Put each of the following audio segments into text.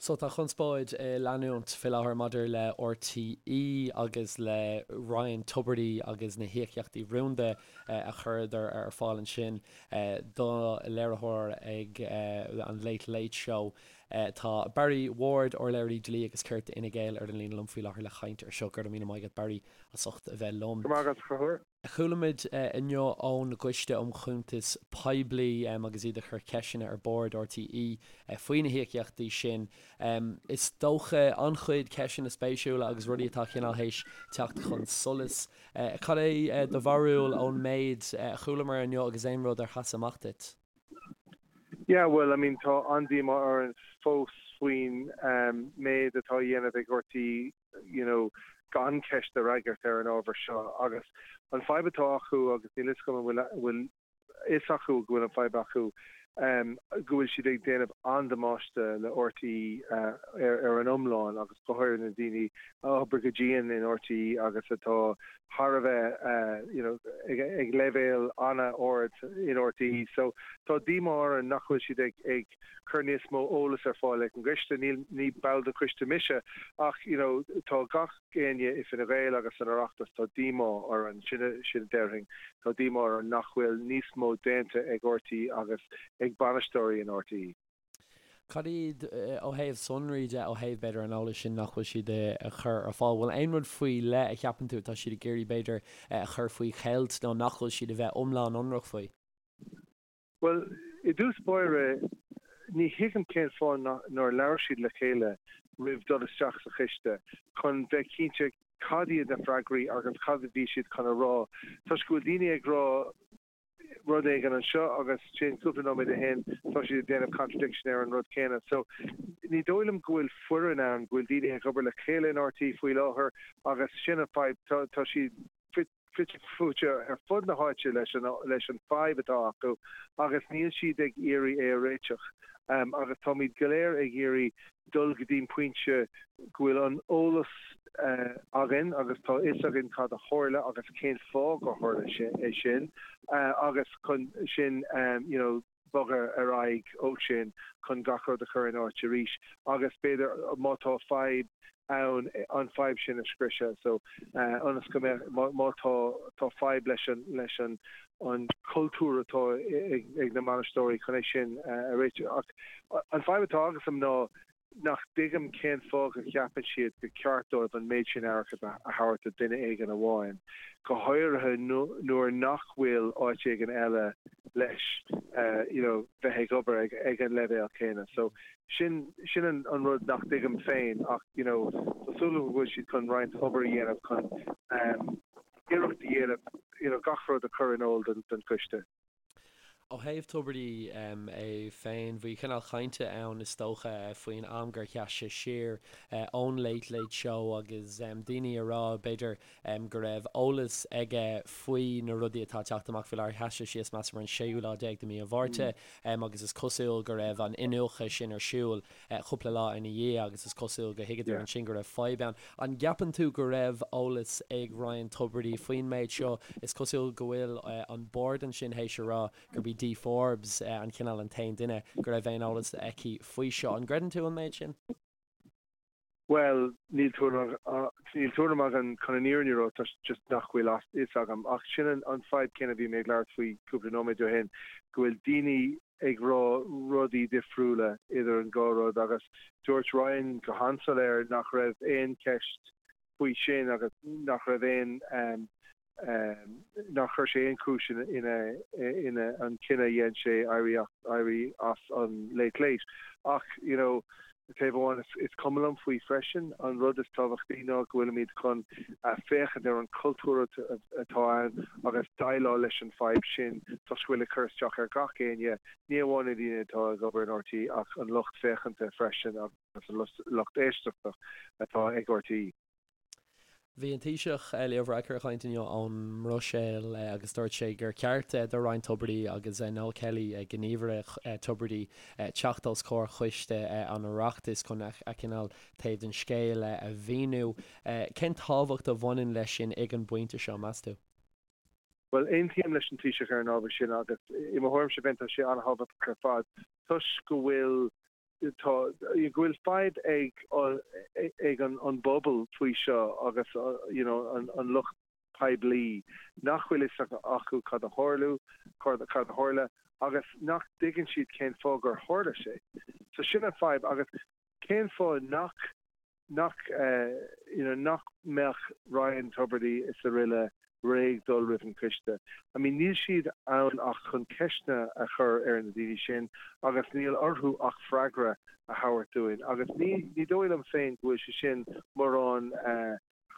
So tá conspóid ag leanúint fé láthair maidir le RTÉ agus le Ryan Tubridy agus na híocaíochtaí rúnda a chuireadar ar fáil ansin do léiritheoir ag an Late Late Show. Tá Barry Ward, Urlabhraí Dlí agus Cirt d'Fhine Gael ar an líne liom faoi láthair le caint ar seo. Go raibh míle maith agat Barry as ucht a bheith liom. Go raibh maith agat a Chonchúir. Chuala muid inniu ón gCoiste um Chuntais Poiblí agus iad ag cur ceisteanna ar Bhord RTÉ faoi na híocaíochtaí sin. Is dócha an-chuid ceisteanna spéisiúla agus rudaí atá cineál théis teacht chun solais. Cad é do bharúil ón méid a chualamar inniu agus aon rud ar sheas amach duit? Yeah, well, I mean, tá an-díomá orainn fós faoin méid atá á dhéanamh ag RTÉ you know, gan ceist a fhreagairt ar an ábhar seo agus an fadhb atá acu agus níl fhios agam an bhfuil bhfuil fhios acu go bhfuil an fadhb acu go bhfuil siad ag déanamh an-damáiste le RTÉ ar ar an iomlán agus go háirithe na daoine a oibrigh go dian in RTÉ agus atá thar a bheith you know ag ag leibhéal an-ard in RTÉ so tá díomá orainn nach bhfuil siad ag ag cur níos mó eolas ar fáil ag an gcoiste. Níl, ní ball den choiste mise ach you know tá gach éinne i Fine Gael agus san Oireachtas, tá díomá orainn, sin, sin a déarfainn, tá díomá orainn nach bhfuil níos mó déanta ag RTÉ agus ag bainisteoirí in RTÉ. Cad iad, ó thaobh sonraí de, ó thaobh b'fhéidir an eolais sin nach bhfuil siad a chur ar fáil, bhfuil aon rud faoi leith a cheapann tú atá siad ag iarraidh b'fhéidir a chur faoi cheilt nó nach bhfuil siad a bheith iomlán ionraic faoi? Bhuel, i dtús báire, ní thuigim cén fáth nár labhair siad le chéile roimh dul isteach sa choiste chun bheith cinnte cad iad na freagraí agus cad a bhí siad chun a rá toisc go bhfuil daoine ag rá rud éigin anseo agus ansin cúpla nóiméad ó shin tá siad ag déanamh contradiction ar an rud céanna. So, ní dóigh liom go bhfuil foireann ann, go bhfuil daoine ag obair le chéile in RTÉ faoi láthair agus sin an fadhb, tá siad fite fuaite ar fud na háite leis an leis an fadhb atá acu agus níl siad ag iarraidh é a réiteach. Agus táimid go léir ag iarraidh dul go dtí'n pointe go bhfuil an eolas againn agus tá fhios againn cad a tharla agus cén fáth gur tharla é sin agus chun sin you know bogadh ar aghaidh ó sin chun gach rud a chur in áit arís agus b'fhéidir má tá fadhb ann an fadhb sin a scriosadh so ionas go mbeadh má tá tá fadhb leis an leis an an cultúr atá ag ag na bainisteoirí chun é sin a réiteach ach an fadhb atá agamsa ná nach dtuigim cén fáth go gceapann siad gur ceart dóibh an méid sin airgid a thabhairt do duine éigin amháin, go háirithe nuair nach bhfuil áit éigin eile leis you know bheith ag obair ag ag an leibhéal céanna. So sin sin an an rud nach dtuigim féin ach you know tá súil agam go bhfuil siad chun roinnt obair a dhéanamh chun iarracht a dhéanamh you know gach rud a chur in iúl don don choiste. Ó thaobh Tubridy é féin, bhí cineál cainte ann is dócha faoin am gur sheas sé siar ón Late Late Show agus daoine ag rá b'fhéidir go raibh eolas aige faoi na rudaí atá ag teacht amach faoi láthair. Sheas sé síos measaim ar an séú lá déag de mhí an Mhárta agus is cosúil go raibh an iniúchadh sin ar siúl cúpla lá ina dhiaidh agus is cosúil go thuigeadar ansin go raibh fadhb ann. An gceapann tú go raibh eolas ag Ryan Tubridy faoin méid seo? Is cosúil go bhfuil an bord ansin théis a rá gurb í Dee Forbes an cineál an t-aon duine go raibh aon eolas aici faoi seo. An gcreideann tú an méid sin? Bhuel, níl tuairim níl tuairim agam chun an fhírinne a rá toisc just nach bhfuil a fhios agam. Ach sin an fadhb céanna a bhí mé ag labhairt faoi cúpla nóiméad ó shin, go bhfuil daoine ag rá rudaí difriúla idir an dhá rud agus dúirt Ryan go han-soiléir nach raibh aon cheist faoi sin agus nach raibh aon nár chuir sé aon chúis ina ina an cinneadh a dhein sé éirí éirí as an Late Late. Ach you know taobh amháin is cuma liom faoi freisin. An rud is tábhachtaí ná go bhfuilimid chun féachaint ar an chultúr atá ann agus déileáil leis an fadhb sin toisc go bhfuil ag cur isteach ar gach éinne, ní amháin na daoine atá ag obair in RTÉ ach an lucht féachanta freisin agus an lucht éisteachta atá ag RTÉ. Bhí an Taoiseach Leo Varadkar ag caint inniu ón mBruiséil agus dúirt sé gur cheart do Ryan Tubridy agus Noel Kelly, gníomhaire Tubridy, teacht os comhair choiste an Oireachtais chun a chineál taobh den scéal a mhíniú. Cén tábhacht a bhaineann leis sin ag an bpointe seo, meas tú? Bhuel, aontaím leis an Taoiseach ar an ábhar sin agus i mo thuairimse féin tá sé an-thábhachtach ar fad toisc go bhfuil. Tá, go bhfuil fadhb ag ag an an bpobal faoi seo agus you know an an lucht poiblí nach bhfuil fhios acu cad a tharlú, cad a tharla agus nach dtuigeann siad cén fáth gur tharla sé. So sin an fadhb agus cén fáth nach nach you know nach mbeadh Ryan Tubridy is araile réidh dul roimh an choiste. I mean níl siad ann ach chun ceisteanna a chur ar na daoine sin agus níl orthu ach freagra a thabhairt dúinn agus ní ní dóigh liom féin go bhfuil sé sin mórán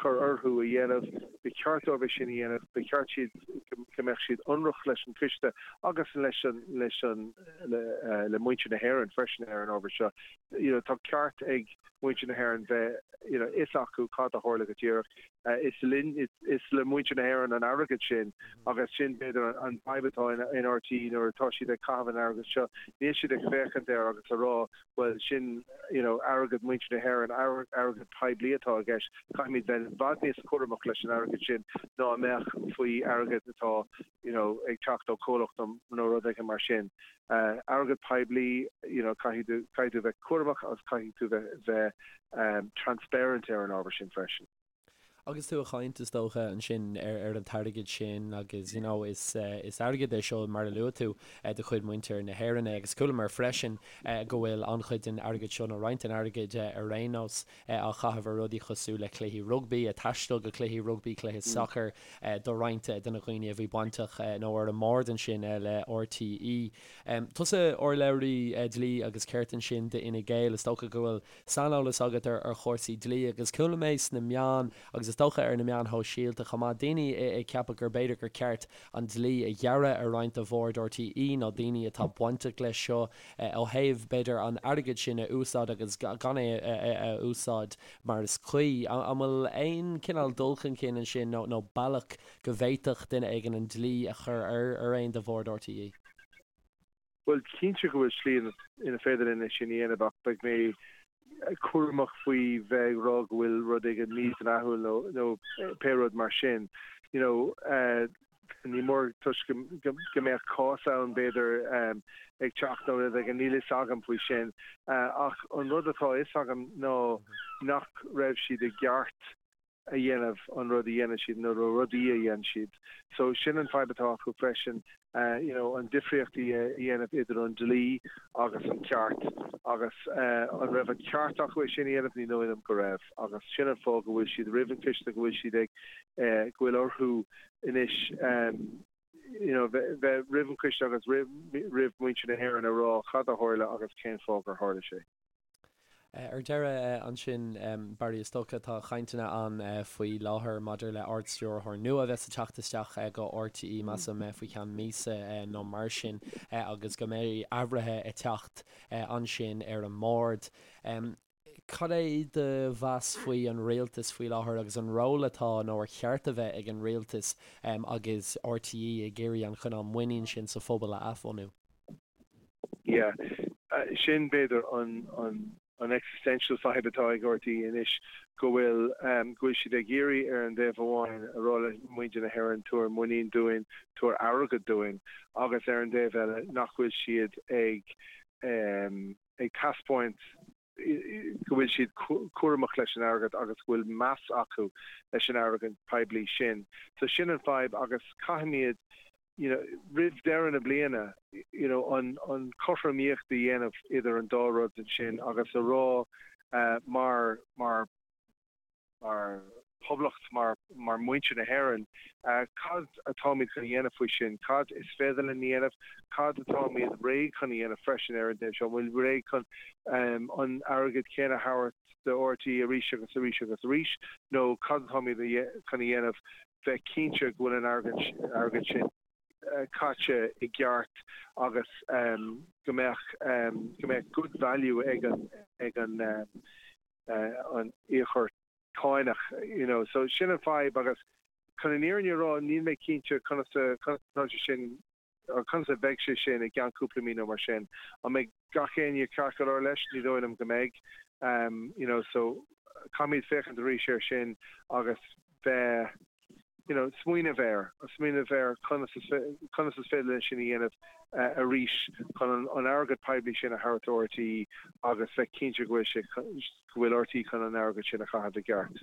cur orthu a dhéanamh. Ba cheart dóibh é sin a dhéanamh. Ba cheart siad go mbeadh siad ionraic leis an choiste agus leis an leis an le muintir na hÉireann freisin ar an ábhar seo. You know tá ceart ag muintir na hÉireann bheith you know fhios acu cad a tharla go díreach. Is linn is le muintir na hÉireann an airgead sin agus sin b'fhéidir an fadhb atá in in RTÉ nuair atá siad ag caitheamh an airgead seo. Níl siad ag féachaint air agus a rá bhuel sin you know airgead muintir na hÉireann, airgead poiblí atá i gceist, caithfimid bheith i bhfad níos cúramach leis an airgead sin ná a mbeadh faoi airgead atá you know ag teacht ó chomhlacht nó rud éigin mar sin. Airgead poiblí you know caithfidh tú caithfidh tú bheith cúramach agus caithfidh tú bheith bheith transparent ar an ábhar sin freisin. Agus tú ag caint, is dócha, ansin ar an t-airgead sin agus you know is is airgead é seo mar a luaigh tú de chuid muintir na hÉireann é agus chualamar freisin go bhfuil an-chuid den airgead seo nó roinnt den airgead ar aon nós á chaitheamh ar rudaí cosúil le cluichí rugbaí, taisteal go cluichí rugbaí, cluiche sacair do roinnt de na dhaoine a bhí bainteach nó ar an mbord ansin le RTÉ. Tusa urlabhraí dlí agus cirt ansin d'Fhine Gael, is dócha go bhfuil saineolas agat ar chúrsaí dlí agus chuala mé sna meáin agus is dócha ar na meáin shóisialta chomh maith, daoine ag ceapadh gur b'fhéidir gur ceart an dlí a ghearradh ar roinnt de bhord RTÉ nó daoine atá bainteach leis seo ó thaobh b'fhéidir an airgead sin a úsáid agus gan é a úsáid mar is cuí. An bhfuil aon chineál dul chun cinn ansin nó bealach go bhféadfadh duine éigin an dlí a chur ar aon de bhord RTÉ? Bhuel, cinnte go bhfuil slí ina féidir linn é sin a dhéanamh ach beidh mé cúramach faoi bheith ag rá go bhfuil rud éigin mídhleathúil nó nó pé rud mar sin. You know, ní mór toisc go mbeadh cás ann b'fhéidir ag teacht nó rud éigin, níl fhios agam faoi sin. Ach an rud atá fhios agam ná nach raibh siad i gceart a dhéanamh an rud a dhéanann siad nó na rudaí a dhéanann siad. So sin an fadhb atá acu freisin, you know an difríocht a dhéanamh idir an dlí agus an ceart agus an raibh an ceart acu é sin a dhéanamh? Ní dóigh liom go raibh agus sin an fáth go bhfuil siad roimh an choiste, go bhfuil siad ag, go bhfuil orthu anois you know bheith roimh an choiste agus roimh mhuintir na hÉireann a rá cad a tharla agus cén fáth gur tharla sé. Ar deireadh ansin, Barry, is dócha tá cainteanna ann faoi láthair maidir le Ard-Stiúrthóir nua a bheas ag teacht isteach go RTÉ, measaim, faoi cheann míosa nó mar sin agus go mbeidh athruithe ag teacht ansin ar an mbord. Cad é do mheas faoi an rialtas faoi láthair agus an ról atá nó ar cheart a bheith ag an rialtas agus RTÉ ag iarraidh an cineál muinín sin sa phobal a athbhunú? Yeah. Sin b'fhéidir an an an existential fadhb atá ag RTÉ anois, go bhfuil go bhfuil siad ag iarraidh ar an dtaobh amháin a rá le muintir na hÉireann tabhair muinín dúinn, tabhair airgead dúinn agus ar an dtaobh eile nach bhfuil siad ag ag taispeáint go bhfuil siad cúramach leis an airgead agus go bhfuil meas acu leis an airgead poiblí sin. So sin an fadhb agus caithfimid you know roimh deireadh na bliana you know an an cothromaíocht a dhéanamh idir an dá rud ansin agus a rá mar mar mar phoblacht, mar mar muintir na hÉireann, cad atáimid chun a dhéanamh faoi sin, cad is féidir linn a dhéanamh, cad atáimid réidh chun a dhéanamh freisin ar an dtaobh seo, an bhfuil réidh chun an airgead céanna a thabhairt do RTÉ arís agus arís agus arís nó cad atáimid chun a dhéanamh bheith cinnte go bhfuil an airgead sin caite i gceart agus go mbeadh go mbeadh good value ag an ag an an íocóir cánach you know. So sin an fadhb agus chun an fhírinne a rá níl mé cinnte conas a conas atá sé sin or conas a bheidh sé sin i gceann cúpla mí nó mar sin. An mbeidh gach éinne ceart go leor leis? Ní dóigh liom go mbeidh. You know so caithfimid féachaint arís air sin agus bheith. you know, smaoineamh air, smaoineamh ar conas is conas is féidir linn sin a dhéanamh arís chun an airgead poiblí sin a thabhairt do RTÉ agus bheith cinnte go bhfuil sé go bhfuil RTÉ chun an airgead sin a chaitheamh i gceart.